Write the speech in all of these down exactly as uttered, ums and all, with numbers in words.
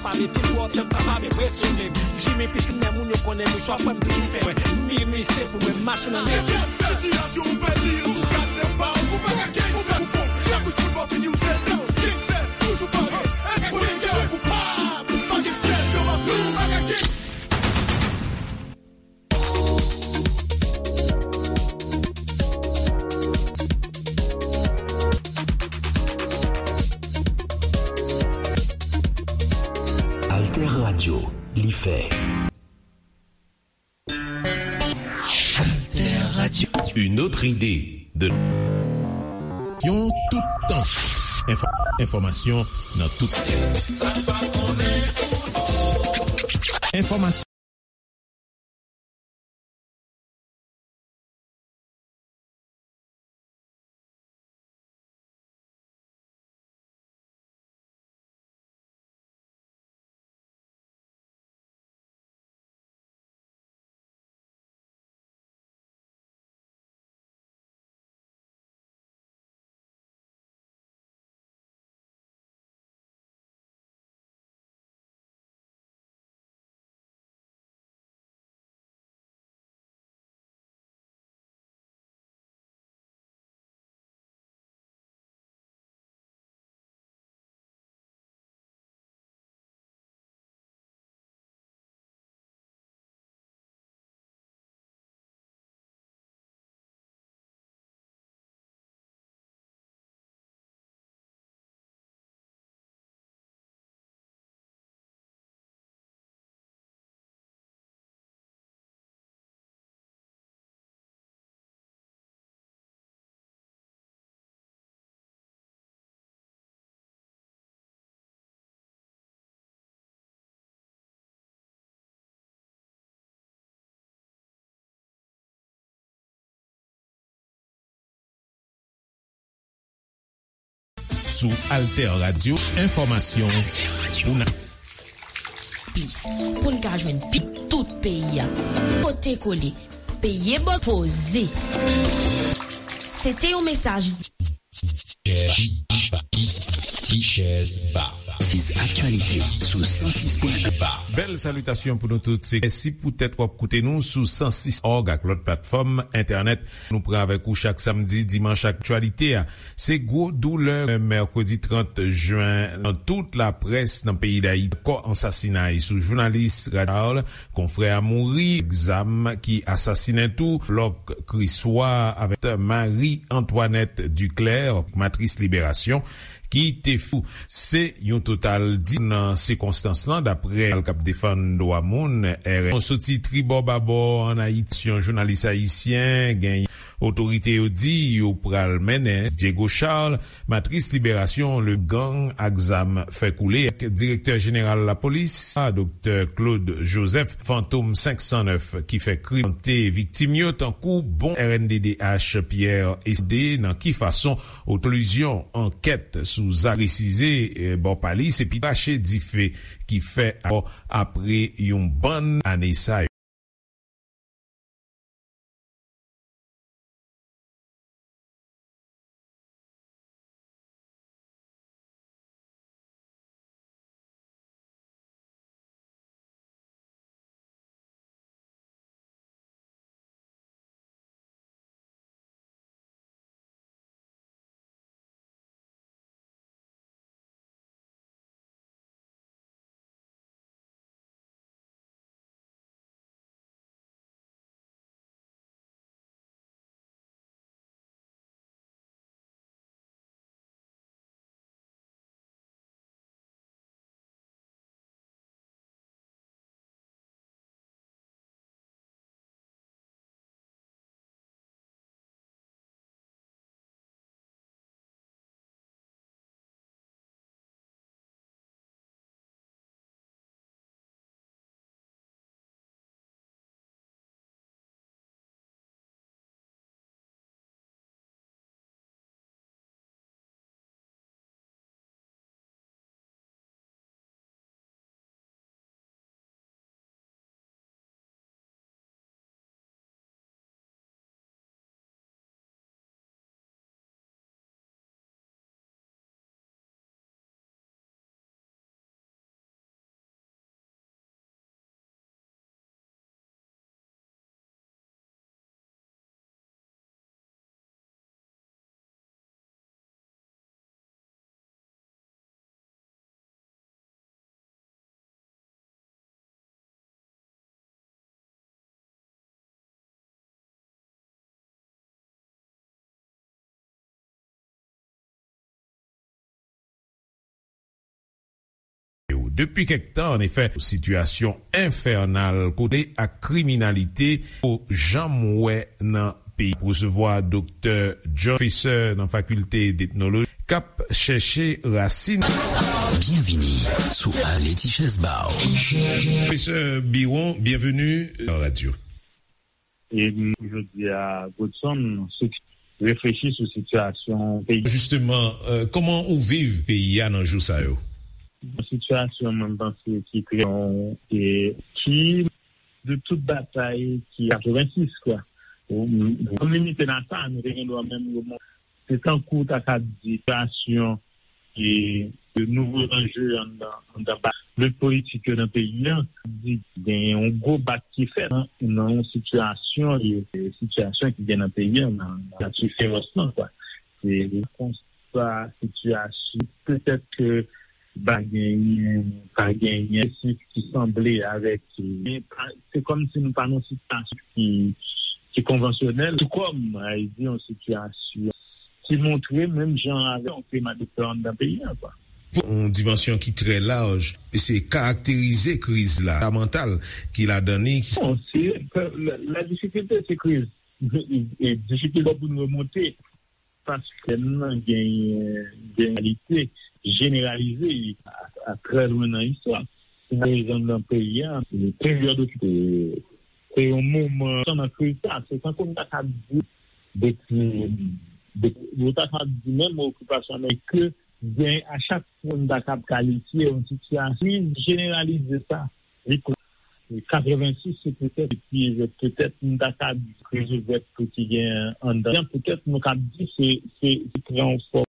Pa mefye twò, janm kapab enpresyone m. Jimmy pitit men moun yo konnen mouchwa pran m toujou fè mwen. Mimi se pou mwen, machin nan men. Sitiyasyon ou pèdi, ou gad nan pa ou, ou pa ka kenbe, ou fè ou bon. Lapous moun pa fini, ou se gangstè, toujou pare, enpresyone, koupab, pa gen fyèl, yo pa pran ou pa ka kenbe. Alter Radio, li fè. Alter Radio. Une autre idée de yon tout tan. Enfò- enfòmasyon nan tout. Enfòmasyon. Sou Alter Radio, enfòmasyon pou n a- Plis, pou n ka jwenn pi tout peyi a. Pote kole, peye bò poze. Se te yon mesaj. Tichèz Ba. Tichèz Ba. Tiz aktyalite sou san sis pwen en Ba. Bèl salitasyon pou nou tout. Se mèsi poutèt w ap koute nou sou san sis òg ak lòt platfòm entènèt. Nou pran avèk ou chak samdi, dimanch, aktyalite a. Se gwo doulè mèkredi trant jen nan tout laprès nan peyi Dayiti. Kò ansasinay sou jounalis Rachel, konfrè a mouri, zam ki asasinen tou, Lòk Kriswa avèk Marie Antoinette Duclair, Matris Liberasyon, ki te fou. Se yon total di nan sikonstans lan, daprè al k ap defann dwa moun, R N. Soti tribò babò ann Ayiti, yon jounalis ayisyen, gen otorite yo di yo pral mennen Diego Charles, Matris Liberasyon, le gang ak zam fè koule, ak direktè jeneral lapolis, Doktè Claude Joseph, Fantom senk san nèf, ki fè krim, te viktim yo, tankou bon R N D D H Pierre Esde, nan ki fason oklizyon ankèt sou zak presize, eh, bò pa li, se pi rache dife ki fè apre yon bann ane sa yo. Depi kèk tan, annefè, sitiyasyon enfènal kote ak kriminalite ou janm wè nan peyi. Resevwa Doktè John, pwofesè nan Fakilte d'Etnoloji, k ap chèche rasin. Byenvini sou Ale Tichèz Ba w. Pwofesè Biron, byenveni nan radyo. E m, jodi a, Godson, sou, reflechi sou sitiyasyon peyi. Jisteman, euh, kòman ou viv peyi a nan jou sa yo? Yon sitiyasyon, mwen, m panse ki trè, e ki, de tout batay ki katrevensis, kwa. Ou, m, m limite nan sa, nou te gen dwa menm remonte. Se tankou w ta ka di sitiyasyon e de nouvo anje anndan, anndan ba lit politik yo nan peyi a, di genyen yon gwo bak ki fèt nan, nan yon sitiyasyon, e, e sitiyasyon ki gen nan peyi a, nan, nan nati feròs lan, kwa. Se konsa sitiyasyon, petèt ke pa genyen, pa genyen sif ki sanble avèk, men pa, se kòmsi nou pa nan sitiyasyon ki, ki konvansyonèl, tou kòm, a, di yon sitiyasyon ki montre menm jan avèk yon klima de pè anndan peyi a, kwa. Yon dimansyon ki trè laj, e se karakterize kriz la, ka mantal ki ladan li. Bon, se, la, la difikilte, se kriz. E, e difikilte pou nou remonte, paske nan genyen, genyen kalite jeneralize a, a trè lwen nan istwa. Si n ap rezonn nan peyi a, se peryòd okipe, se yon moman nan kriz sa, se tankou n ta ka di depi, depi, yo ta ka di menm okipasyon Amerik ke gen a chak fwa n ta kab kalifye yon sitiyasyon jeneralize sa. Li kon-, katrevensis se petèt, epi petèt n ta ka di kriz ouvèt tou ki gen anndan, petèt nou kab di se, se, se pran yon fòm.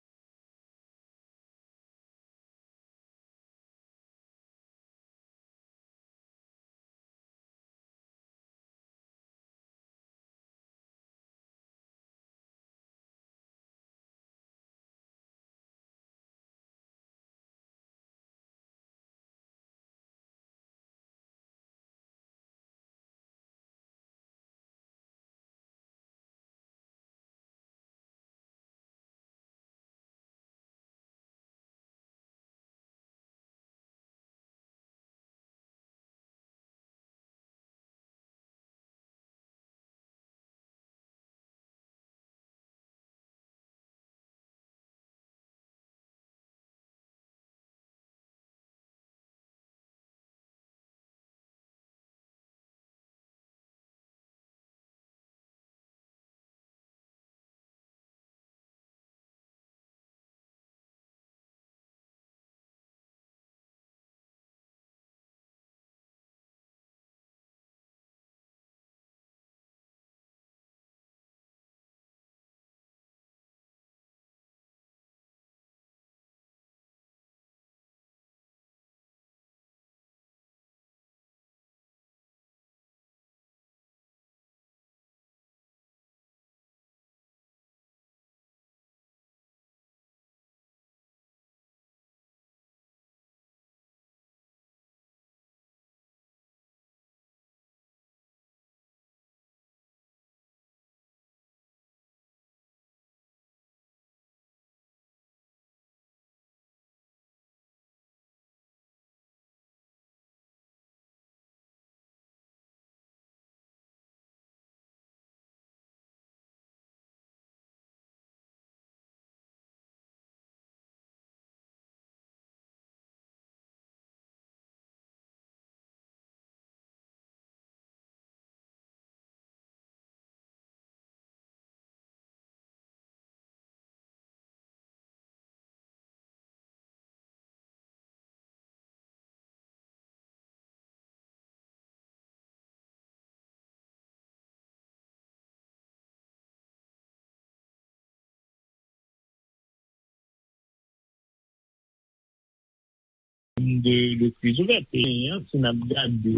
De, de kriz ouvèt. E, si n ap gade,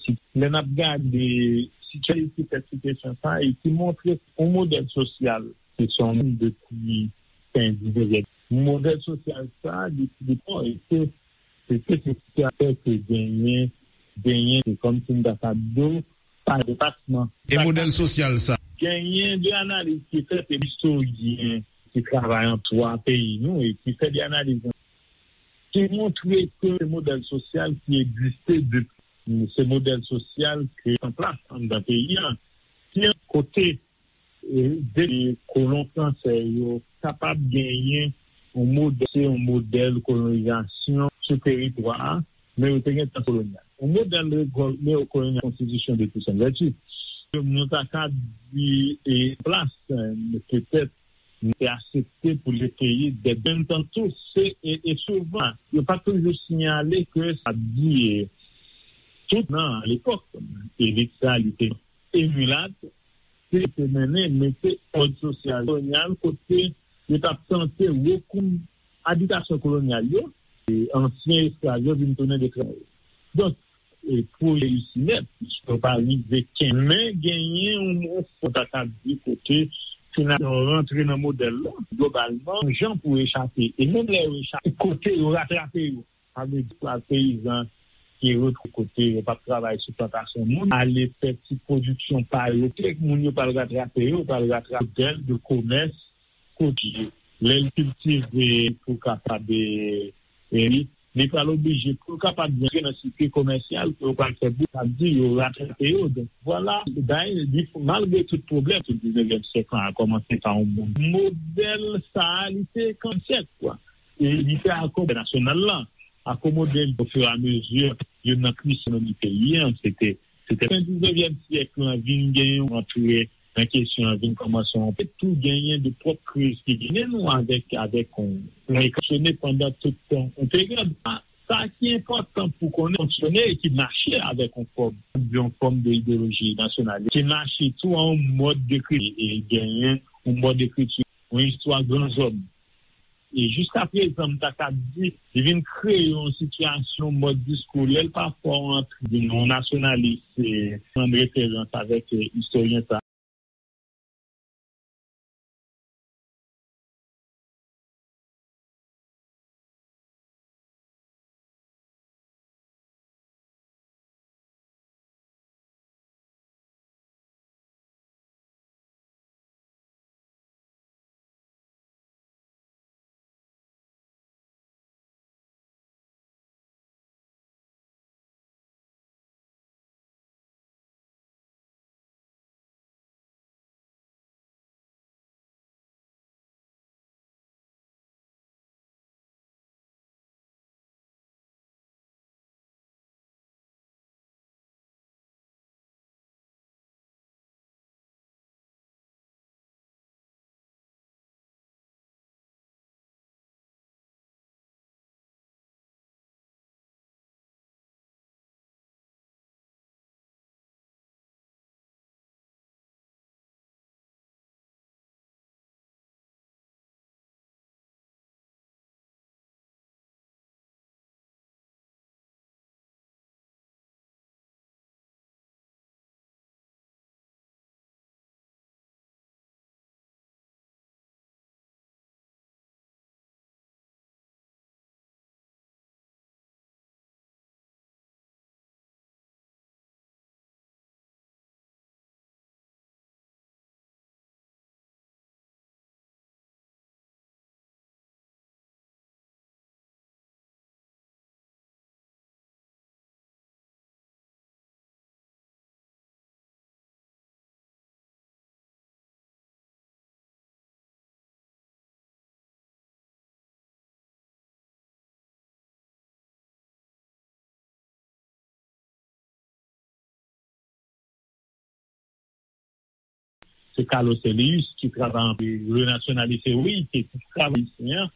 si, lè n ap gade sitiyasyon ki fè sitiyasyon sa, e ki montre yon modèl sosyal ki se yon moun depi fen diznèvyèm. Modèl sosyal sa, depi, depi, e se, se, se, se sitiyasyon ke genyen, genyen, se kòmsi m ta ka di w, pa depasman. E modèl sosyal sa? Genyen de analiz ki fèt, e istoryen ki travay an istwa peyi nou e ki fè de analiz. ki montre ke se modèl sosyal ki egziste depi, se modèl sosyal ki an plas anndan peyi a, ki kote e, de kolon fransè yo kapab genyen yon modèl, se yon modèl kolonizasyon sou teritwa a, men yo te gen tan kolonyal. Yon modèl neokolonyal konstitisyon de Toussaint Louverture. Nou ta ka di e plas, e, petèt, nou te aksepte pou le peyi de menm tan tou, se, e, e souvan, yo pa toujou siyale ke sa di, e, tout nan lepòk, elit sa, li te emilat, se te mennen mete òd sosyal kolonyal kote yo t ap tante rekou abitasyon kolonyal yo, e ansyen esklav yo vin tounen de travay. Donk, e pou reyisi nèt, yo pa rive kenbe, men genyen yon, yon fon ta ka di kote finalman rantre nan modèl la, globalman, yon jan pou echape. E menm lè yo echape, kote yo ratrape yo. Sa vle di, peyizan ki retwouve kote yo p ap travay sou plantasyon moun, ale fè ti pwodiksyon pa yo, kèk moun yo pral ratrape yo, pral ratrape modèl de komès kote lè l kiltive pou kapab, e, e, li, li pral oblije pou l kapab rantre nan sikil komèsyal pou yo pral fè bou, sa vle di yo ratrape yo. Donk, vwala, bay, li, malgre tout pwoblèm, tout diznevyèm syèk lan a kòmanse pa yon moun. Modèl sa a, li te kansyèk, kwa. E li fè akò entènasyonal lan, akomode l ofiramezi youn nan kri ekonomi peyi a. Se te, se te fen diznevyèm syèk lan vin gen yon antre nan kesyon an, vin kòmanse yon pe tou genyen de pwòp kriz ki genyen nou avèk, avèk yon, yon fonksyone pandan tout tan yon peryòd. Sa ki enpòtan pou konnen, fonksyone e ki mache avèk yon fòm, yon fòm de ideoloji nasyonalis, ki mache tou an yon mòd dekriti e genyen yon mòd ekriti, yon istwa gran zòn. E jiska prezan, m ta ka di, li vin kreye yon sitiyasyon, mòd diskou, lè l pafwa yon, yon nasyonalis, e, pran referans avèk, e, istoryen sa. Se Carlos Elius ki travay anpil, le nationaliste, wi, ki travay ayisyen an,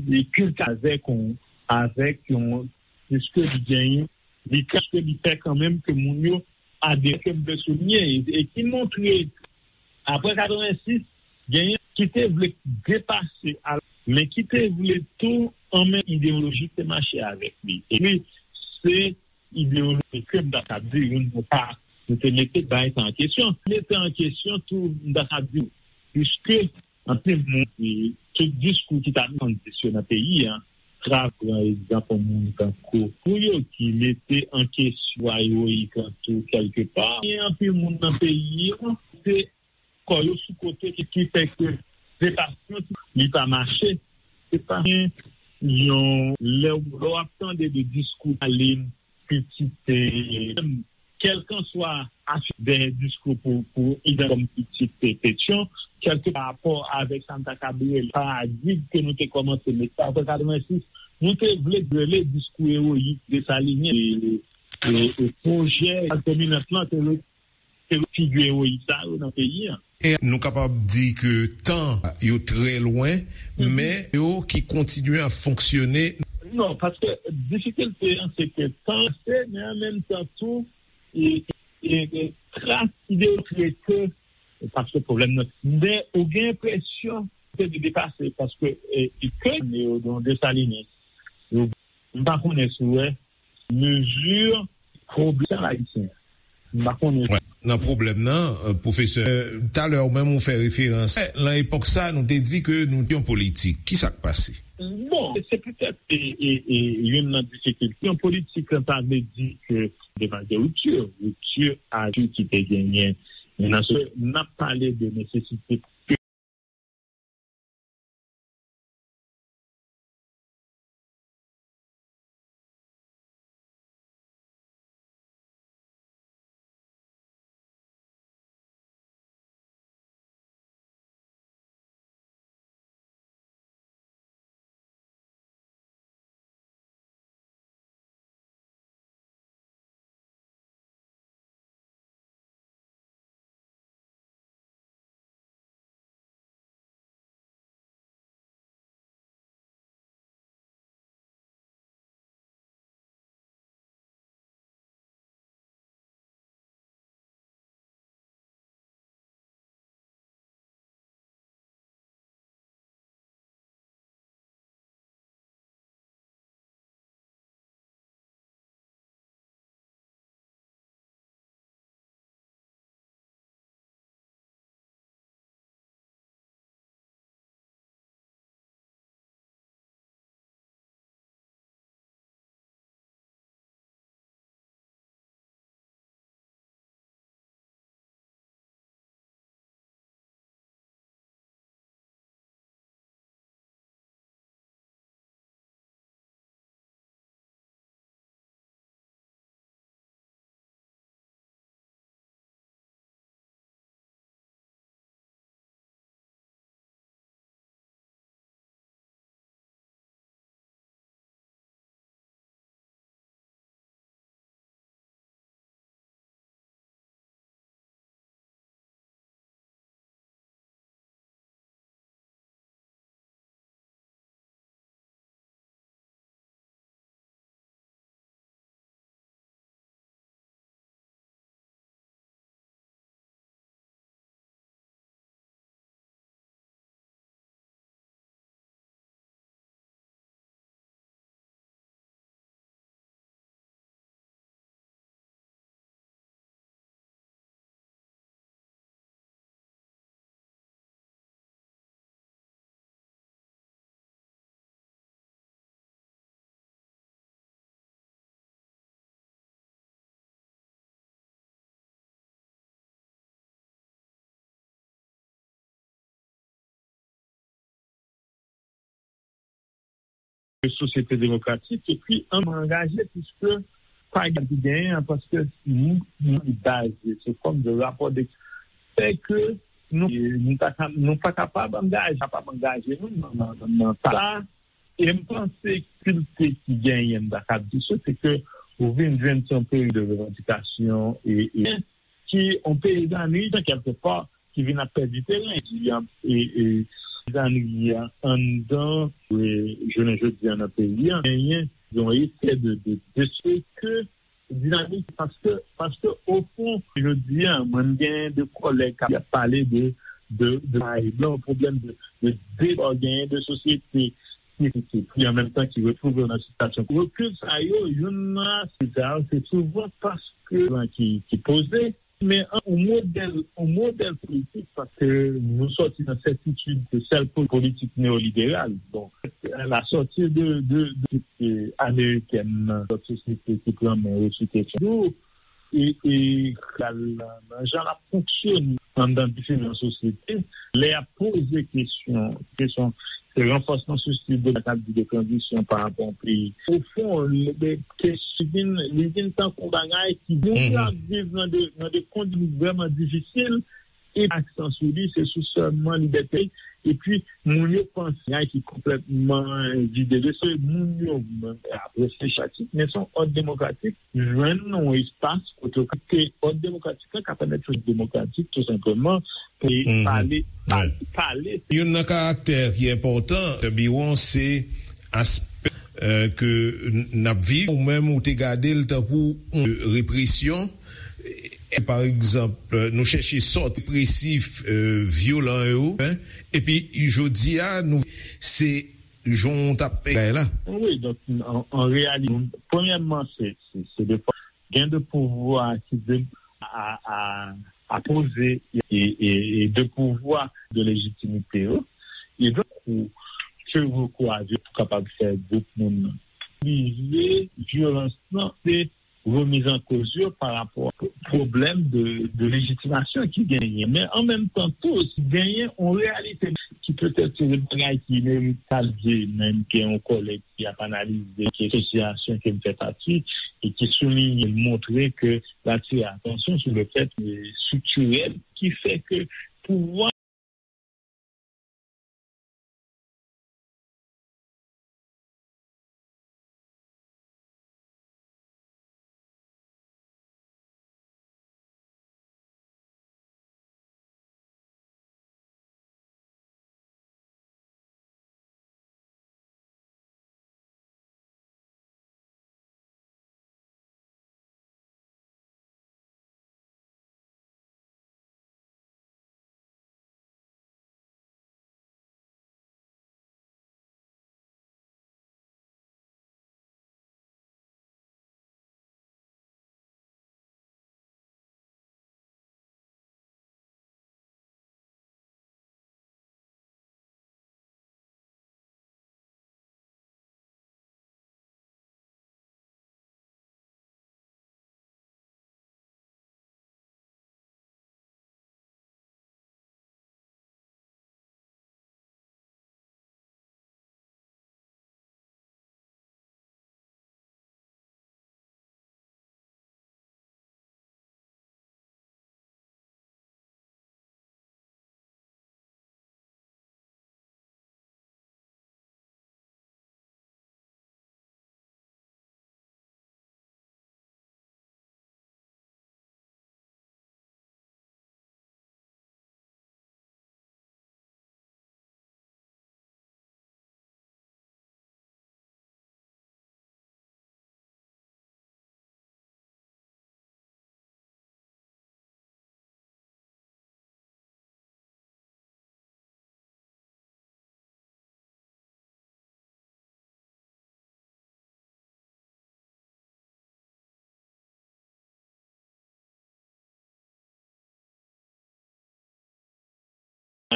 li kiltive avèk yon, avèk yon, piske li genyen, li, piske li fè kanmenm ke moun yo adere, ke m vle souliye, e ki montre, apre katrevensis, genyen ki te vle depase, al, men ki te vle tou anmenm ideoloji ki te mache avèk li. Epi, se ideoloji ke m ta ka di, nou pa, nou te mete bay sa an kesyon. Mete an kesyon tou, m ta ka di, piske anpil moun, e, tout diskou ki ta tandis yo nan peyi a, tra pran egzanp yon moun tankou pou yo ki mete an kesyon ewoyik lan tou kèlkepa. Gen anpil moun nan peyi a, se kò yo sou kote ki, ki fè ke depasman li pa mache. Se pa gen yon, lè, lè w ap tande de diskou Stalin, pitit, e, kèlkanswa afè dèyè diskou pou, pou idan kòm pitit, e, Petyon, kèlke pa rapò avèk sa m ta kab rele paradig ke nou te kòmanse mete apre katrevensis, nou te vle rele diskou ewoyik Desalinyen, e, e, e pwojè klas dominant lan te re-, te figi ewoyik sa yo nan peyi an. E nou kapab di ke tan yo trè lwen, men yo ki kontinye ap fonksyone. Non, paske difikilte an se ke tan se, men an menm tan tou, e, e, e tras ide yo trete, paske pwoblèm nan, men ou gen enpresyon se de depase, paske, e, e ke yo don Desalinen, yo, m pa konnen si w wè, mezi pwoblèm ayisyen. M pa konnen. Wè, nan pwoblèm nan, e, pwofesè, e, talè ou menm ou fè referans. E, nan epòk sa, nou te di ke nou te yon politik. Ki sa k pase? Bon, se petèt, e, e, e, youn nan difikilte. Yon politik, sa vle di ke devan de rupti, ripti a ki te genyen. Nan se, n ap pale de nesesite sosyete demokratik, epi angaje, piske pa gen ki genyen an, paske nou, nou baze sou fòm de rapò de fè ke nou, nou pa ka, nou pa kapab angaje, kapab angaje nou nan, nan, nan, nan sa. E m panse difikilte ki genyen, m ta ka di sa, se ke ou vin jwenn se yon peryòd de revandikasyon e, e ki yon peyizanri, kèlkepa, ki vin ap pèdi teren. Di, e, e, peyizanri an anndan, e, jounen jodi a nan peyi an, genyen yon efè de, de, de se ke dinamik, paske, paske, o fon, jodi a, mwen, m genyen de kòlèg k ap pale de, de, de, de blan, pwoblèm de, de deba, genyen de sosyete ki, ki, ki an menm tan ki retwouve yo nan sitiyasyon rekil sa yo, youn nan aspè sa yo, se souvan paske blan ki, ki poze, men an, yon modèl, yon modèl politik, paske nou sòti nan sètitid ke sèl po-, politik neyoliberal. Bon, la sòti de, de, de, de amerikèn nan lòt sosyete ki pran men yo sou kesyon. E, e, nan jan l ap fonksyone anndan diferan sosyete, lè y ap poze kesyon, kesyon, Se ranfòsman sou stil de, sa k ap di de tranzisyon pa rapò a yon peyi. Ofon, li, li, kesyon vin, li vin tankou bagay ki moun yo ap viv nan de, nan de kondisyon vrèman difisil, e aksan sou li, se sou sèlman libète. Epi, moun yo panse bagay ki konplètman vide de sa. Moun yo, apre se chatik, men se yon òd demokratik, jwenn yon espas kote ke òd demokratik la ka pèmèt fòs demokratik, tou senpleman, pou pale, pale, pale. Youn nan karaktè ki enpòtan, Biwon, se aspè, euh, ke n ap viv, ou menm ou te gade l tankou yon represyon. E, pa egzanp, nou chèche sòti represif, euh, vyolan yo, en, epi jodi a, nou, se jan w t ap bay la. Wi, donk, an, an reyalite, premyèman, se, se, se de fwa, gen de pouvwa ki de, a, a, a poze e, e, e de pouvwa de lejitimite yo. E donk, ou, ke rekou a vye pou kapab fè gwoup moun nan. Vize vyolans lan, se remiz an koz yo pa rapò a pwoblèm de, de lejitimasyon ki genyen. Men an menm tan tou, si genyen yon reyalite ki petèt se de bagay ki inevitab, menm gen yon kòlèg ki ap analize ke asosyasyon ke m fè pati e ki souliye, montre ke l atire atansyon sou le fèt, e, estriktirèl ki fè ke pouvwa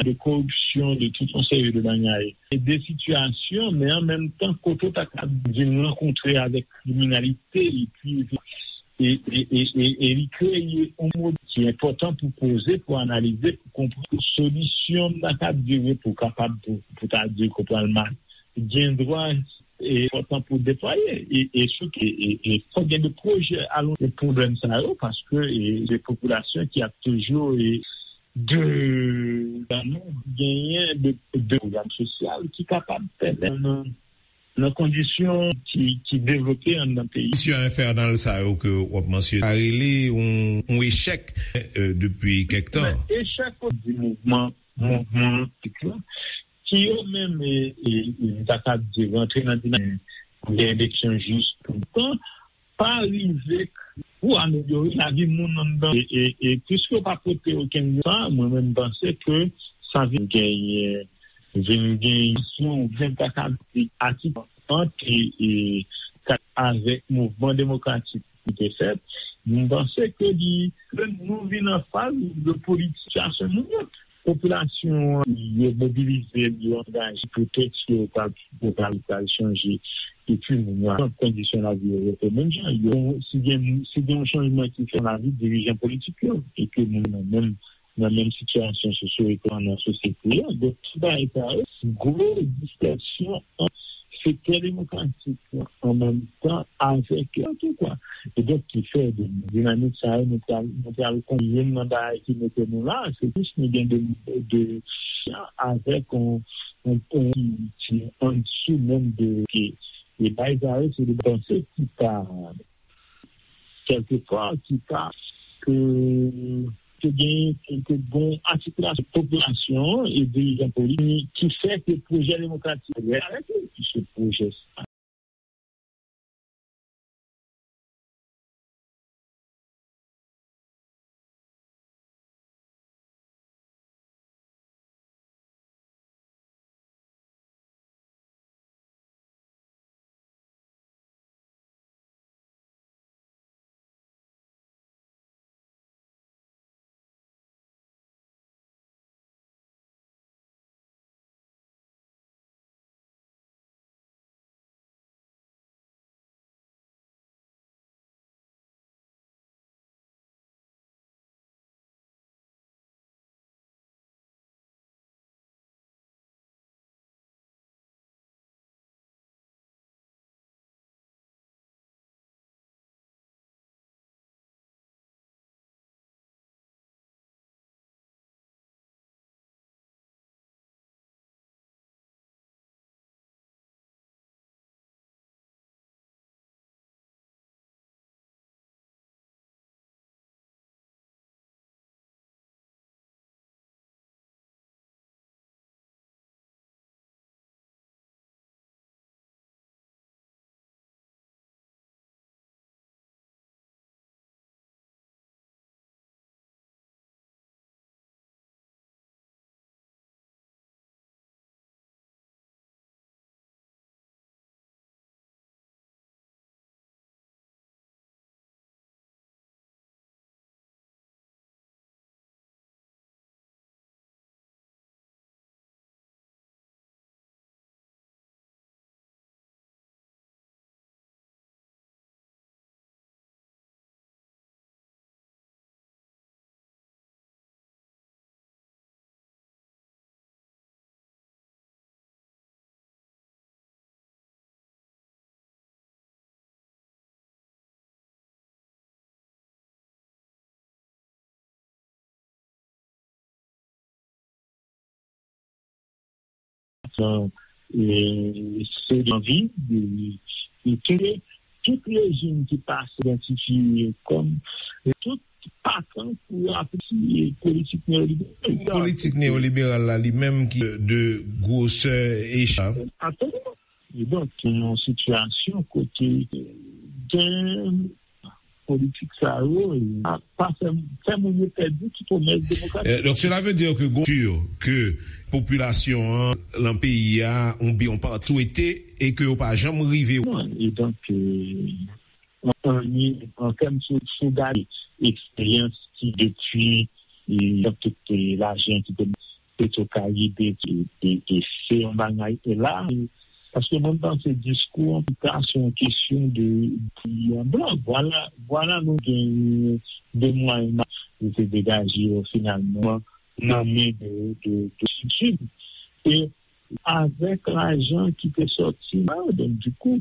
de koripsyon, de tout yon seri de bagay. E de sitiyasyon, men an menm tan, kote w ta ka di m rankontre avèk kriminalite, epi, e, e, e, e, e li kreye yon modèl ki enpòtan pou poze, pou analize, pou konprann solisyon m ta ka dire pou kapab, pou, pou ta di ke pral mal. Gen dwa e enpòtan pou deplwaye. E, e, sou, e, e, e fòk gen de pwojè alon de pwoblèm sa yo, paske, e, de popilasyon ki ap toujou, e, de, genyen de, de pwogram sosyal ki kapab pèmèt nan, nan kondisyon ki, ki devlope anndan peyi. Kondisyon enfènal sa yo ke w ap mansyone, sa rele yon, yon echèk, e, depi kèk tan. Men echèk di mouvman, mouvman politik la, ki yo menm, e, e, e, m ta ka di, rantre nan dinamik pou gen eleksyon jis tout tan, pa rive pou amelyore lavi moun anndan. E, e, e piske yo pa pote okenn sa, mwen menm m panse ke sa vin genyen, vin genyen yon vin ta ka di atik ant, e, e, avèk mouvman demokratik ki te fèt, m panse ke li, ke nou vin an faz de politisasyon moun yo. Popilasyon an, yo mobilize, yo angaje, poutèt yo pral, yo pral, pral chanje. Epi, moun yo, kondisyon lavi yo rete menm jan. Yo, si gen, si gen yon chanjman ki fèt nan lavi dirijan politik yo, e ke moun yo menm, nan menm sitiyasyon sosyo-ekonomik nan sosyete a. Donk, tout bagay sa yo, se gwo distraksyon ant sektè demokratik la, an menm tan avèk tou kwa. E donk, ki fè de dinamik sa yo, nou pral, nou pral konn youn nan bagay ki mete nou la, se plis nou gen de, de, avèk on, on, on ki andisyou menm de, ke, e bagay sa yo, se de panse ki pa, kèlkefwa, ki pa, ke, ke gen, ke, ke gon atikilasyon popilasyon e dirijan politik ki fè ke pwojè demokratik reyalize, ki se pwojè sa. E, se anvi de, de tout, tout rejim ki pa idantifye kòm, e, tout pa tan pou apresye politik neyoliberal. Politik neyoliberal la, li menm ki de gwosè echèl. Absoliman. E donk, se yon sitiyasyon kote gen politik sa yo, e pa fè, fè moun yo pèdi tout pwomès demokratik. Euh, donc, cela veut dire que, gon, sûr que popilasyon an, lan peyi a, yon byen, yon pati swete, e ke yo pa janm rive. Non, e donk, euh, an, an, an tèm sou, sou gade eksperyans ki depi, e, tout, e, lajan ki te Petro Karibe, e, e, e se yon bagay, e la, e, paske mwen panse diskou an, tou ka, se yon kesyon de, de blan. Vwala, vwala nou gen de mwayen nou te degaje yo finalman nan men de, de, de Sid. E avèk lajan ki te sòti la, donk, dikou,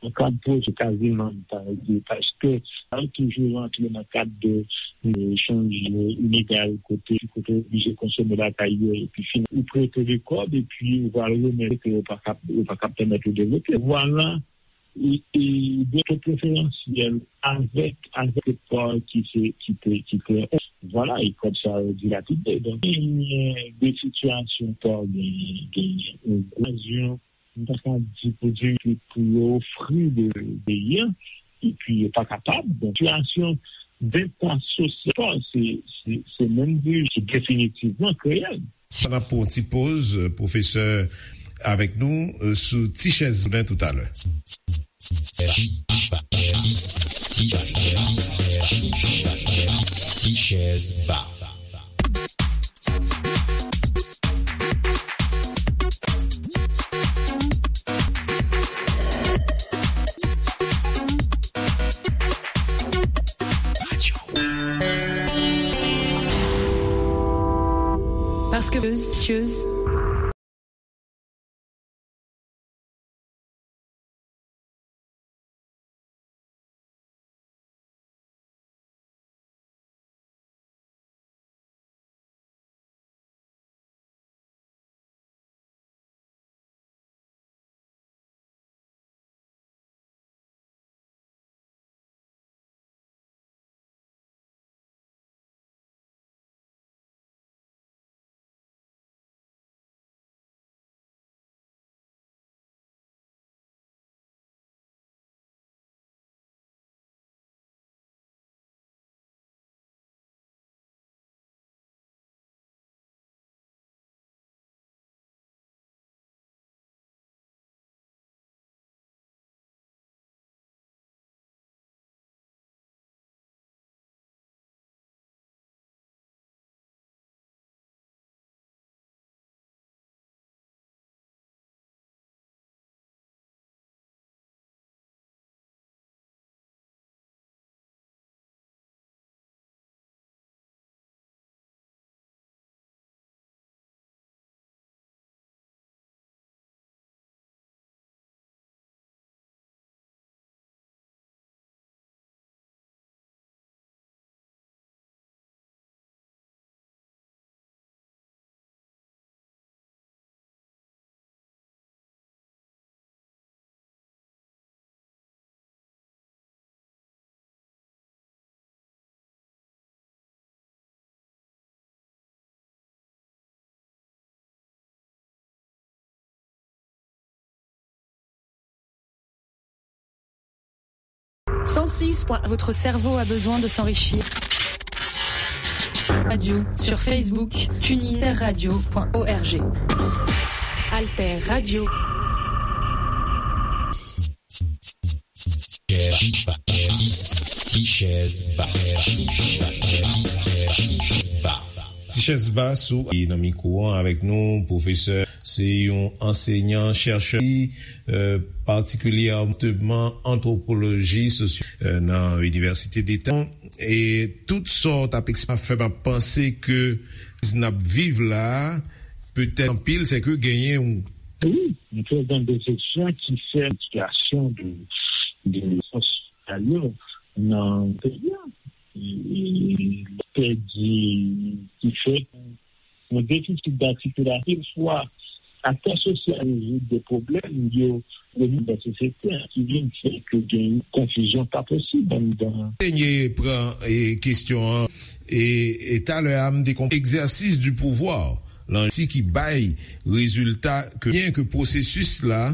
nan kad pwojè kaziman, m ta di, paske sa yo toujou rantre nan kad de, de echanj ilegal, kote, kote w oblije konsome lakay yo, epi fin, ou prete de kòb, epi ou pral remèt ke yo pa kap, yo pa kap pèmèt ou devlope. Vwala, e, e, de to preferansyèl avèk, avèk pa ki se, ki te, ki te, vwala, e kòb sa yo dilapide. Donk, genyen de sitiyasyon pa genyen, genyen yon okazyon, m ta ka di pou di ke pou yo ofri de, de peyi a, epi yo pa kapab. Donk, sitiyasyon deta sosyal, se, se, se menm de, ki definitivman kreye l. Sa n ap pran yon ti poz, euh, pwofesè avèk nou, euh, sou Ti Chèz Ba toutalè. Ti Chèz Ba. Est-ce que vous, Cent six point, votre cerveau a besoin de s'enrichir. Radio, sur Facebook, TuneIn, radio point org. Alter Radio. Tichèz Ba sou nan mikwo an avèk nou, pwofesè, se yon ansenyan, chèchè, euh, patikilyèman antwopoloji sosyo, euh, nan Inivèsite Deta. E tout sa w t ap eksplike fè m ap panse ke n ap viv la a, petèt anpil, se ke genyen yon... Wi, yon trè gran desepsyon ki fè sitiyasyon de, de sosyal yo nan peyi a. E, e, pèdi ki fè yon defisit datikilasyon, swa aktè sosyal rezoud de pwoblèm yo, yo vin nan sosyete a, ki vin fè ke gen konfizyon pa posib anndan. Dènye pran, e, kesyon an, e, e talè a, m te konprann egzèsis di pouvwa, lan ti ki bay rezilta ke byen ke pwosesis la,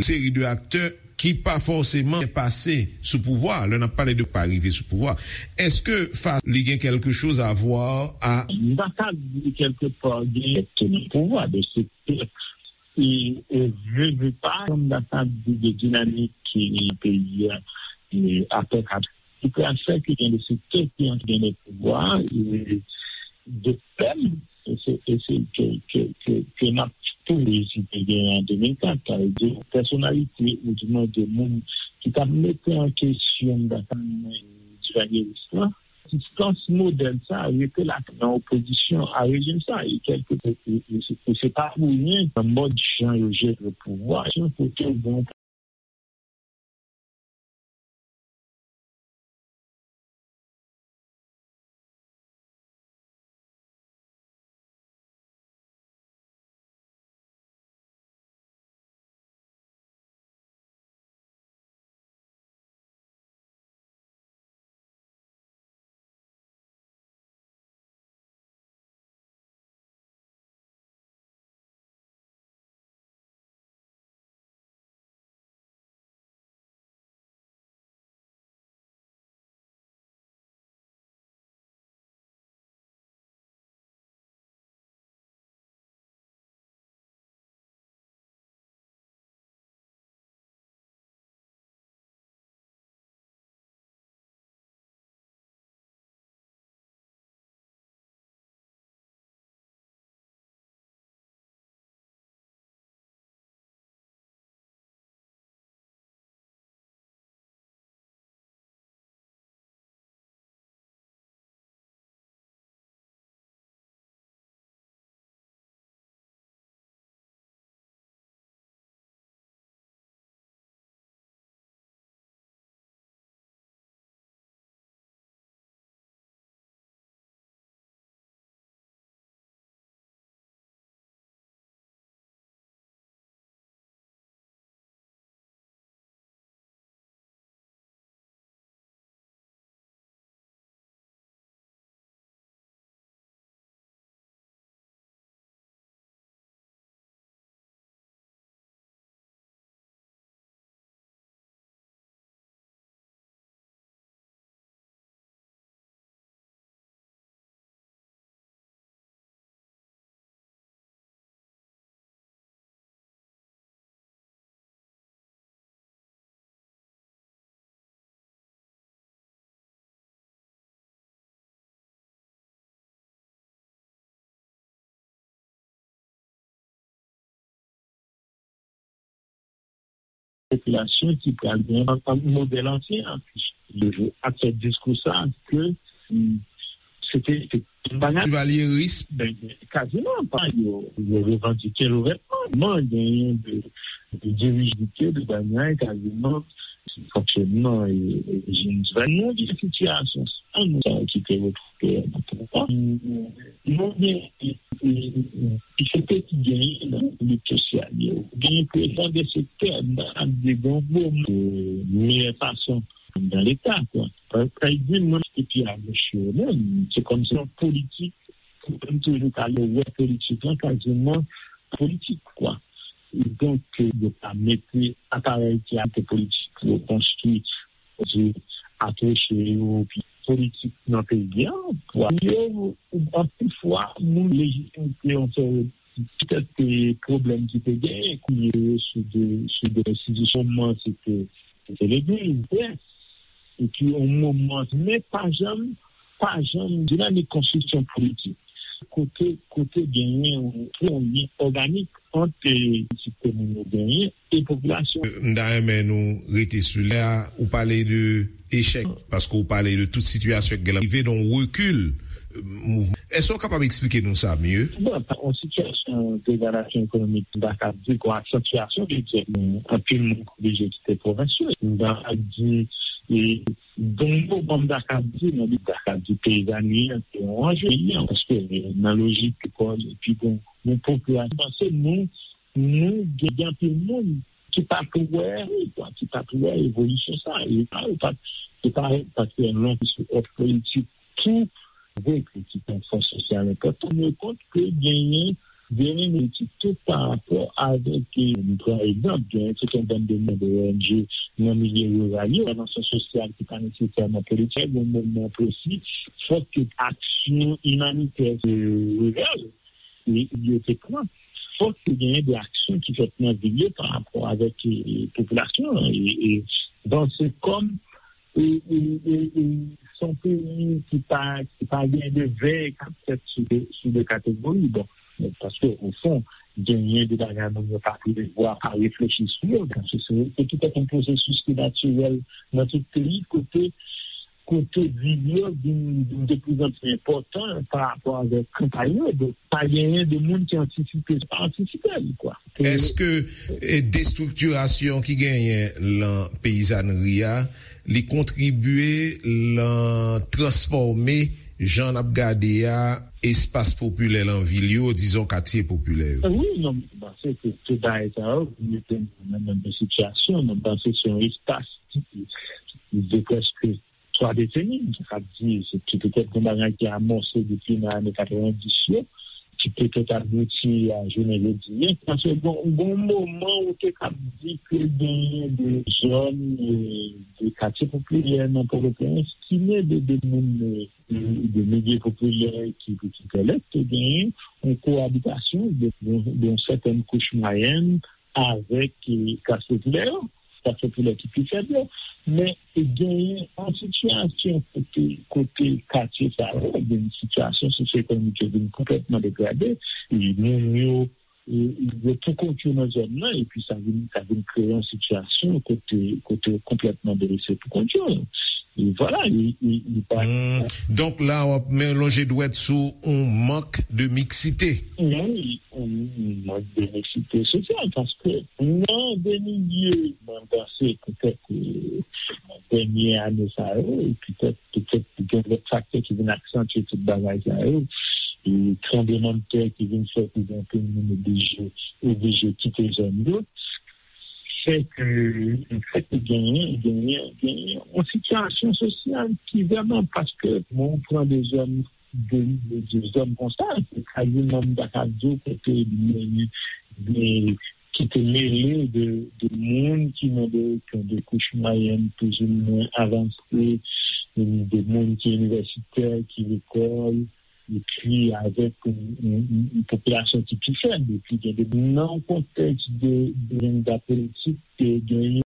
seri de aktè ki pa fòseman pase sou pouvwa, lè n ap pale de pa rive sou pouvwa. Èske fa li gen quelque chose à voir a... M ta ka di kèlke pa gen nan pouvwa de sektè e, e vle, vle pa, m ta ka di de dinamik ki peyi a, e apre kat ki pral fè ke gen de sektè ki antre nan pouvwa, e de pèm, e se, e se ke, ke, ke, ke n ap touve si te gen an de mil kat, sa vle di pèsonalite, ou di mwen de moun ki t ap mete an kesyon data Duvalier-Rice la, egzistans modèl sa a rete la nan opozisyon a rejim sa a, e kèlke, e, e, e se, e se pa pou ryen nan mòd jan yo jere pouvwa, jan kote bon popilasyon ki pral gen yon modèl ansyen an. Ak se diskou sa ke, mm, se te, se te yon bagay. Valyeris. Ben, kaziman pa yo, yo revandike louvètman. Genyen de, de dirijite de bagay kaziman fonksyonman e, e, e, nou gen sitiyasyon sa nou sa ki te retwouve nan pouvwa. Nou gen, e, e, e, ki se te ki genyen nan lit sosyal yo. Genyen prezan de sektè nan de grann gwo meyè fason nan Leta, kwa. Sa vle di, mwen, se pi a goch yo menm. Se kòmsi yon politik, pou mwen toujou ka wè politik lan kaziman politik, kwa. Donk, yo pa mete aparèy ki ap politik pou yo konstwi, pou yo apwoche yo, pi politik nan peyi a, pou yo, anpil fwa, moun lejitimite yon seri petèt pwoblèm ki te genyen, kounye yo sou de, sou de enstitisyon, se te, se te legliz, près, epi yon moman, men pa janm, pa janm dinamik konstriksyon politik. Kote, kote genyen yon, yon lyen òganik ant, e, sitwayen yo genyen e popilasyon. M ta renmen nou rete sou lè a, ou pale de echèk, paske ou pale de tout sitiyasyon ki gen rive, donk rekil, e, mouvman. Èske w kapab eksplike nou sa mye? Bon, yon sitiyasyon degradasyon ekonomik, m ta ka di, yon aksantyasyon de echèk, anpil moun oblije kite pwovens yo. M ta ka di, e, Donk, bon, m ta ka di, nan lit, ta ka di peyizani an, se yon anje, paske, e, nan lojik lekòl, epi bon, nou popilasyon, paske nou, nou gen, gen anpil moun ki pa t wè, kwa, ki pa t wè evolisyon sa, e pa, e pa, e pa, paske yon lòt òf politik tou, vre ke se yon fòs sosyal enpòtan, men kont ke genyen, genyen etik tou pa rapò avèk, e, nou pran egzanp, genyen tout yon bann de moun de O N G nan milye riral yo, entèvansyon sosyal ki pa nesesèman politik, yon moman presi, fòk ke aksyon imanitè, e, riral, e, yo te pran. Fòk ke genyen de aksyon ki fèt nan vil yo pa rapò avèk, e, e, popilasyon an, e, e, bon, se kòm e, e, e, e, se yon peyi ki pa, ki pa gen de vèy k ap fèt sou de, sou de kategori. Bon, men paske, o fon, genyen de bagay moun yo pa prevwa, pa reflechi sou yo. Donk, se, se, se tout yon pwosesis ki natirèl nan tout peyi, kote, kote vil yo vin, vin de plus en plus enpòtan pa rapò avèk kanpay yo. Donk, pa genyen de moun ki antisipe, pa antisipe li, kwa. Èske, e, destriktirasyon ki genyen lan peyizanri a, li kontribye lan transfòme jan n ap gade a, espas popilè lan vil yo, dizon katye popilè yo? Wi, non, m panse ke tout bagay sa yo mete nou nan menm sitiyasyon. Non, m panse se yon espas ki, ki de prèske twa deseni, sa vle di, se ki petèt yon bagay ki amòse depi nan ane katrevendis yo, ki petèt abouti a jounen jodi a. Paske bon, bon moman ou te kab di ke genyen de zòn, e, de katye popilè nan Pòtoprens ki mete de moun, e, de, de milye popilè ki, ki pèmèt ke genyen yon koabitasyon de, de, de yon sètèn kouch mwayèn avèk, e, klas popilè yo, klas popilè ki pi fèb yo. Men genyen yon sitiyasyon kote, kote katye sa yo, gen yon sitiyasyon sosyo-ekonomik yo vin konplètman degrade, e moun yo, e, yo pou kont yo nan zòn nan, epi sa vin, sa vin kreye yon sitiyasyon kote, kote yo konplètman delese pou kont yo. E vwala, e, e, e pa. Hmm. Donk la, w ap men lonje dwèt sou yon mank de miksite. Wi, yon mank de miksite sosyal, paske nan de milye, mwen panse petèt, e, nan dènye ane sa yo, e petèt, petèt gen lòt faktè ki vin aksantye tout bagay sa yo, e tranblemanntè ki vin fè ke gen anpil moun oblije, oblije kite zòn yo, fè ke, fè ke genyen, genyen, genyen yon sitiyasyon sosyal ki vrèman, paske mwen pran de zòn, de, de, de zòn konsa, se kaziman m ta ka di w kote de, de, ki te mele de, de moun ki nan de, ki nan de kouch mwayèn plizoumwen avanse, de moun ki inivèsitè, ki lekòl, epi avèk yon, yon, yon, yon popilasyon ki pi fèb, epi gen de, nan yon kontèks de, de jennda politik, ke gen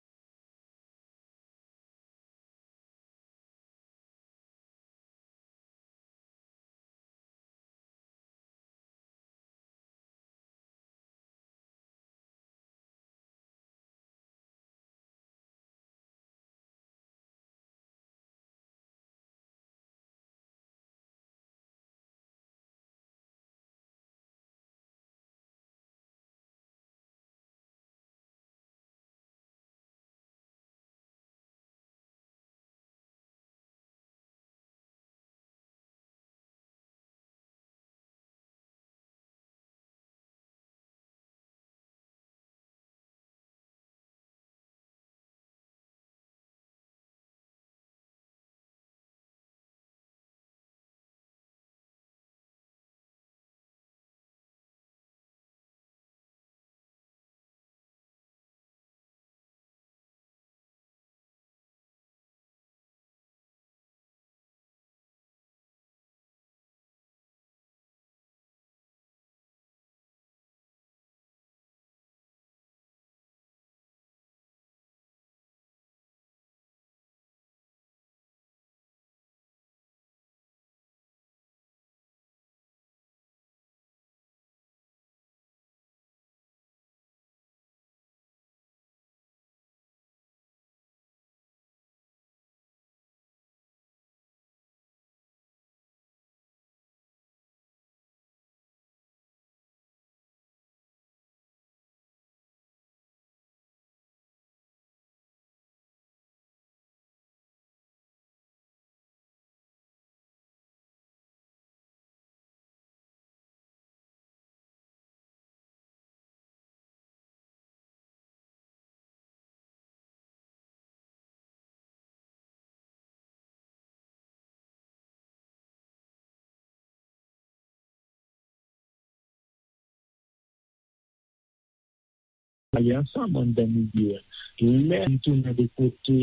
ale ansanm anndan milye a. Lè m tounen de kote,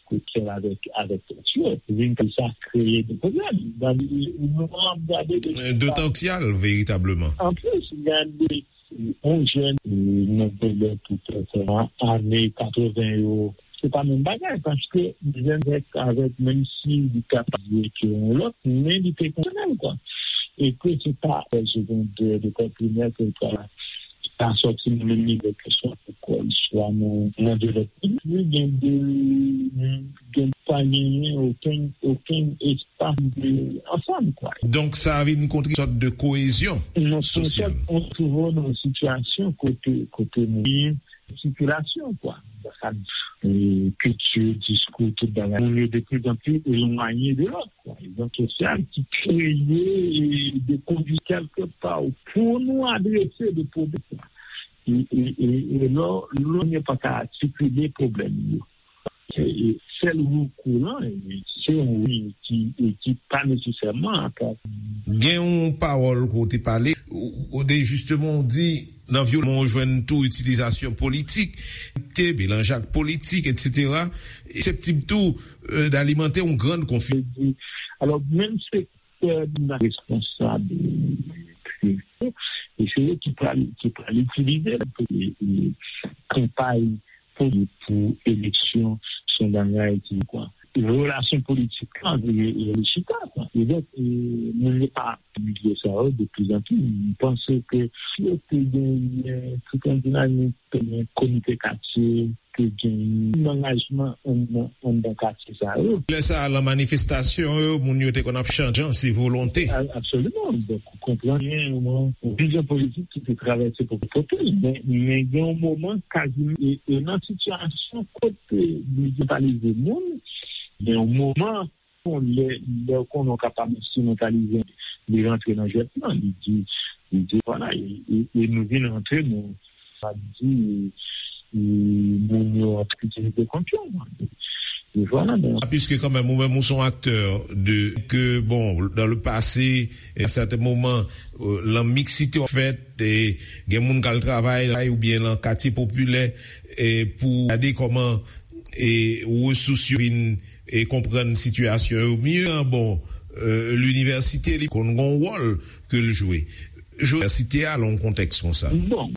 kote avèk, avèk tèt yo, vin ke sa kreye de pwoblèm. Gade, nou ap gade de Dotan k sal, veritableman. Anplis, gade, yon jèn, e, nan pwoblèm pou fè sa, ane katreven yo, se pa menm bagay, paske jèn avèk, avèk, menm si li ka pa di ke yon lòt, men li te konsyonèl, kwa. E ke se pa, e, segondè, lekòl primè, ke l ka, ka sòti nan menm nivo ke swa lekòl, swa nan, nan de lòt peyi. Gen de, gen pa genyen okenn, okenn espas de ansanm, kwa. Donk, sa vin kontre sòt de koezyon sosyal. Non, se yon sòt, on twouve nan yon sitiyasyon kote, kote moun sikilasyon, kwa. Sa, e, kilti, diskou, tout bagay. Moun yo de pli an pli elwanye de lòt, kwa. Egzanp sosyal ki kreye, e, de kondisyon kèlke pa pou nou adrese de pwoblèm, kwa. E, e, e, e lò, lò nou pa ka atikile pwoblèm yo. E, e, sèl rekou lan, e, se yon wi ki, e, ki pa nesesèman atak. Gen yon pawòl ke w te pale, ou, ou te jisteman w di, nan vyolans, ou jwenn tou itilizasyon politik, te melanj ak politik, etsetera. E seseptib tou, e, d'alimante yon grann konfizyon. Alò, menm sektè nan responsab, e, e se yo ki pral, ki pral itilize l pou, e, e, kanpay pou, pou eleksyon, se yon bagay ki, kwa. Relasyon politik lan, e, e, li chita, kwa. E donk, e, moun yo pa milye sa yo de pli an pli. M panse ke si yo te genyen tout yon dinamik, te genyen komite katye, te genyen angajman anndan, anndan katye sa yo. Lè sa a, lan manifestasyon yo, moun yo te konn ap chante jan se volonte. A-, absoliman. Donk, ou konprann, gen yon, yon vizyon politik ki te travèse pou pote l. Men, men gen yon moman, kaziman, e, e nan sitiyasyon kote li enstrimentalize moun, gen yon moman, lè, lè w konnen w kapab enstrimentalize, li rantre nan jwèt lan, li di, li di, vwala, e, e, e nou vin rantre, nou, sa di, e, e moun yo ap itilize kont yo. E vwala, men. Piske kanmenm, ou menm, ou se yon aktè de, ke, bon, dans le passé, à certains moments, euh, lan miksite w fèt, e gen moun k al travay la, oubyen lan katye popilè, e pou gade kòman, e resous yo vin, e konprann sitiyasyon yo mye. Bon, e, linivèsite, li konn gen yon wòl ke l jwe. Jwe linivèsite a, lan yon kontèks konsa. Bon.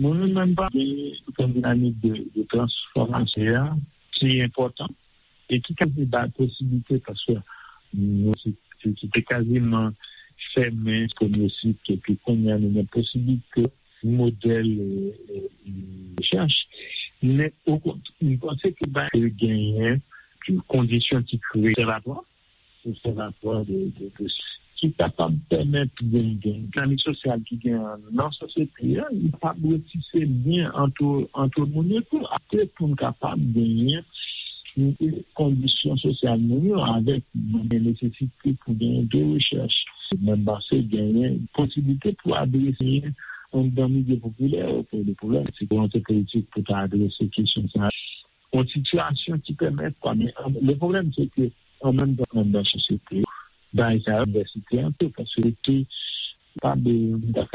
Mwen menm pa gen yon dinamik de, de transfòmasyon a ki enpòtan e ki ka bay posibilite paske nou se, se, se te kaziman fèmen premye sik epi kounye a nou gen posibilite modèl e, e, e, rechèch. Men okont, m panse ke bay genyen kondisyon ki kreye obsèvatwa obsèvatwa de, de, de ki kapab pèmèt gen, gen dinamik sosyal ki gen nan sosyete a, li pa dwe tise lyen ant, ant moun yo tou, ate pou n kapab genyen kondisyon sosyal nou yo avèk gen nesesite pou gen de rechèch. Menm panse genyen posibilite pou adrese anndan milye popilè, pou le pwoblèm, se volonte politik pou ta adrese kesyon sa. Yon sitiyasyon ki pèmèt, kwa, men an, le pwoblèm se ke an menm tan anndan sosyete, bagay sa yo, inivèsite an tou, paske te pa de,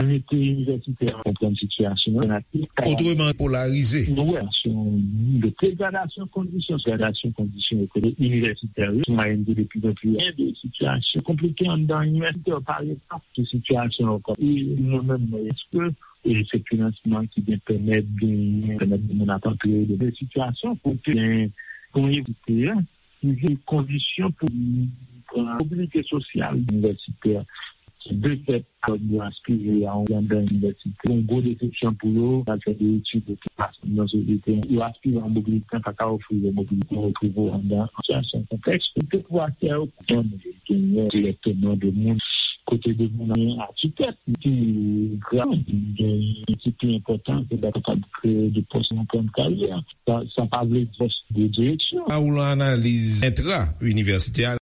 mete inivèsitè an konprann sitiyasyon an. Otreman polarize. Nou wè, se yon de degradasyon kondisyon, degradasyon kondisyon ekonomik inivèsitè yo, sou mayèn de pli an pli de sitiyasyon konplike anndan inivèsitè, pa egzanp, de sitiyasyon ankò. E nou menm, èske e se finansman ki gen pèmèt genyen, pèmèt moun ap antre de sitiyasyon kote gen yon evite ki vin kondisyon pou pran mobilite sosyal inivèsitè ki de fèt yo aspire a yon grandè inivèsite. Yon gwo desepsyon pou yo, nan fè de etid, de tout fason nan sosyete, yo aspire a yon mobilite, pa ka ofri yo mobilite, yo retwouve yo anndan sitiyasyon konplèks. Pou te pou aktè yo, pou genyen dirèkteman de moun kote de moun an atitèt ki grav, gen ki pi enpòtan ke ta kapab kreye de pòs nan plan de karyè. Sa, sa pa vle di pòs de direksyon. Sa ou lan analiz entra inivèsitè a.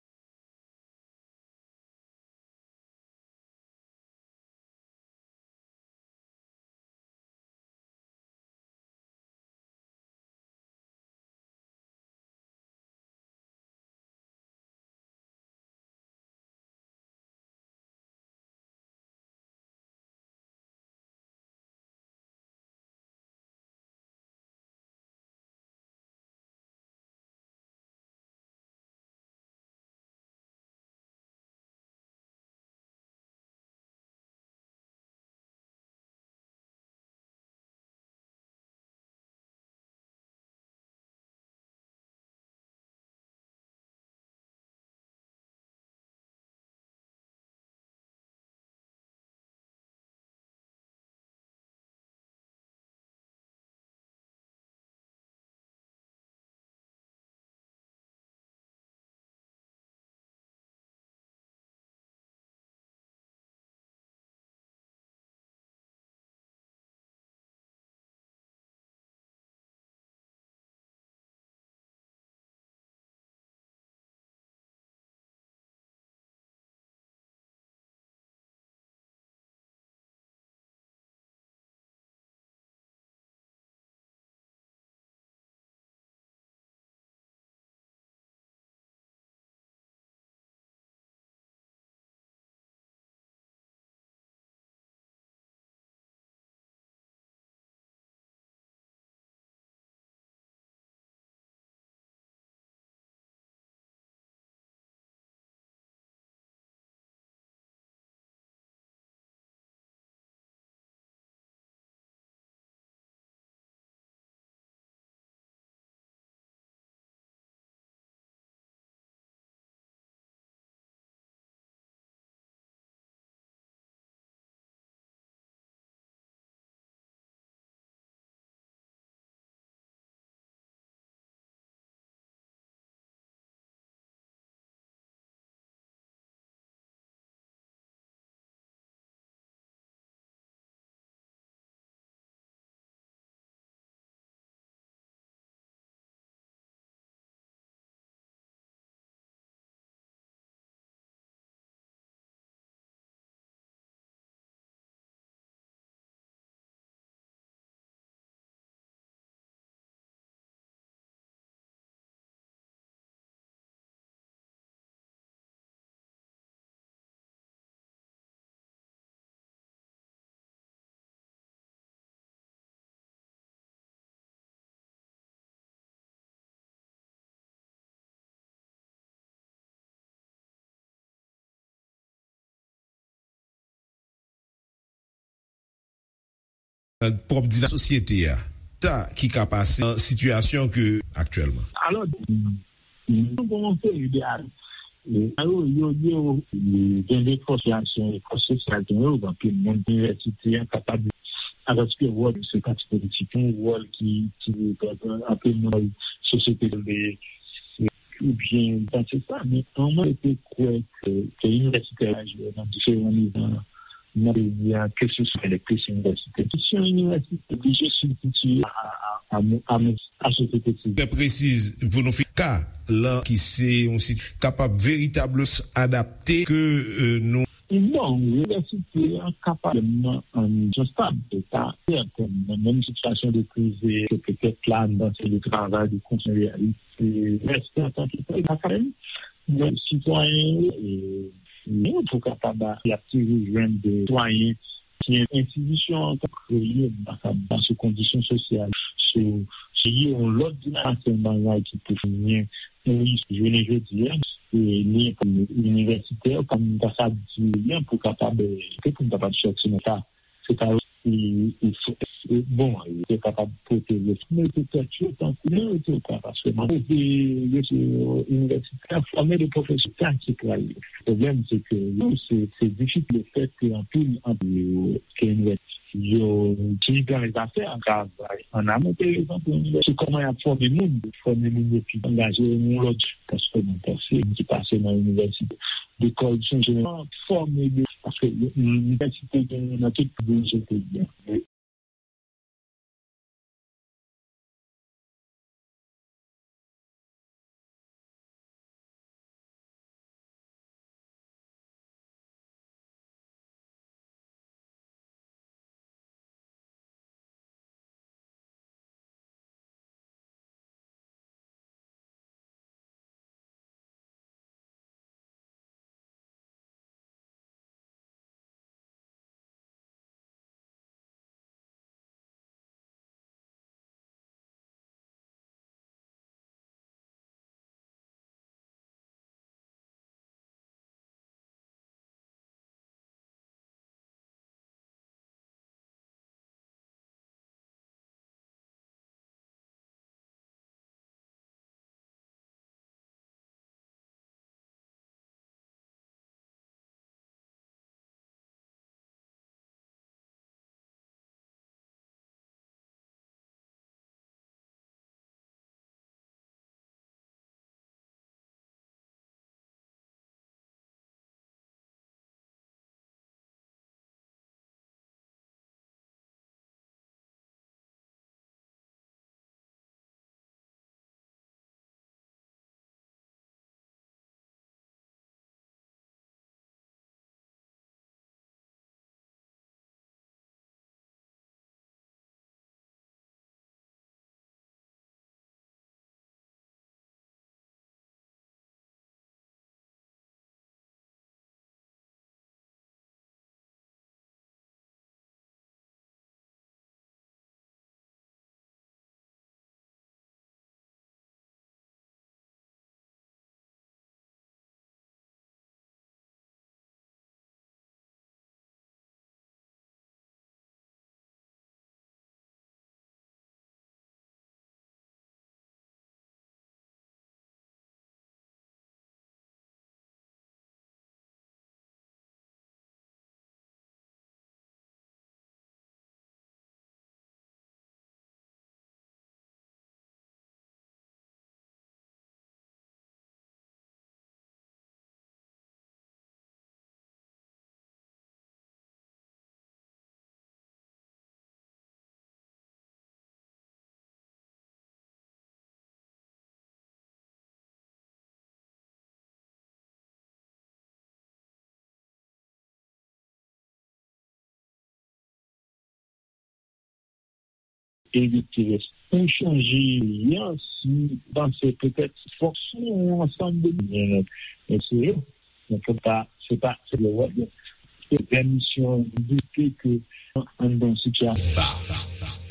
pwòp dinamik sosyete a. Sa ki ka pase nan sitiyasyon ke aktyèlman. Alò, nou gen yon seri de atis, e, yo, yo, yo, e, gen de fòs sosyal, fòs sosyal, gen yo, anpil moun inivèsite a kapab, alòske wòl se pati politik, yon wòl ki, ki, anpil moun sosyete, oubyen, pa se sa, men anmwey te kwè ke, ke inivèsitè yo jwe nan diferan nivo nan peyi a, ke se swa elektris inivèsitè. Kesyon inivèsitè oblije sibstitiye a, a, a, a, a, a sosyete sivil. Trè presiz pou nou fini ka lan ki se yon sit kapab veritableman adapte ke, euh, nou. Bon, inivèsite an kapab nan yon stab de ta, sèten nan menm sitiyasyon de kriz ke petèt la, nan se de travay, de konsèy, se rèspè antanke pèp akademik, men sitwayen, e, nou pou kapab atire jwenn de sitwayen ki enstitisyon an ka kreye, nan sou kondisyon sosyal, sou, sou yon lòt dinamik, se yon bagay ki pou fini, wi, jounen jodi a, e, li inivèsitè, pa m ta sa di, pou kapab, e, pou m kapab sòti nan sa. Se pa yo ki, ki fò, e, bon, yo te kapab pote yo, mete tèt yo tankou yo te ka, paske mwen poze yo se inivèsitè, fòme de pwofesè ki pral. Pwoblèm, se ke yo, se, se difisil le fèt ke anpil, anpil yo, ke inivèsitè, yo, ki dan lè zafè an travay an amont, par egzanp, inivèsitè, kòman y ap fòme moun, fòme moun yo pi angaje yon lòt, paske mwen panse, moun ki pase nan inivèsite, lekòl, se jeneral fòme de, paske inivèsite gen nan tout peyi, se peyi a. Erik Pires. Pou chanje peyi a, si panse petèt fòk sou yon ansanm de moun, men se yo, men fò pa, se pa, se le wòl yo. Se pèmisyon doute ke anndan sitiyasyon.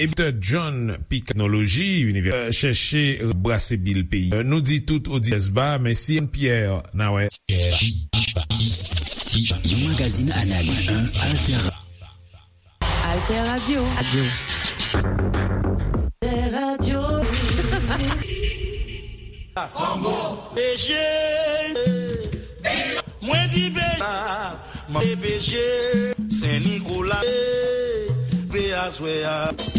Epi John P. Teknoloji, Univè, chèche brase bil peyi. Nou di tout oditè ba, mèsi Pierre Nawè. Yon magazin analiz, un alter. Tè Radio. Tè Radio. Kongo. P G. Mwen di P G. Mwen di P G. Sen Nikola. P aswè a.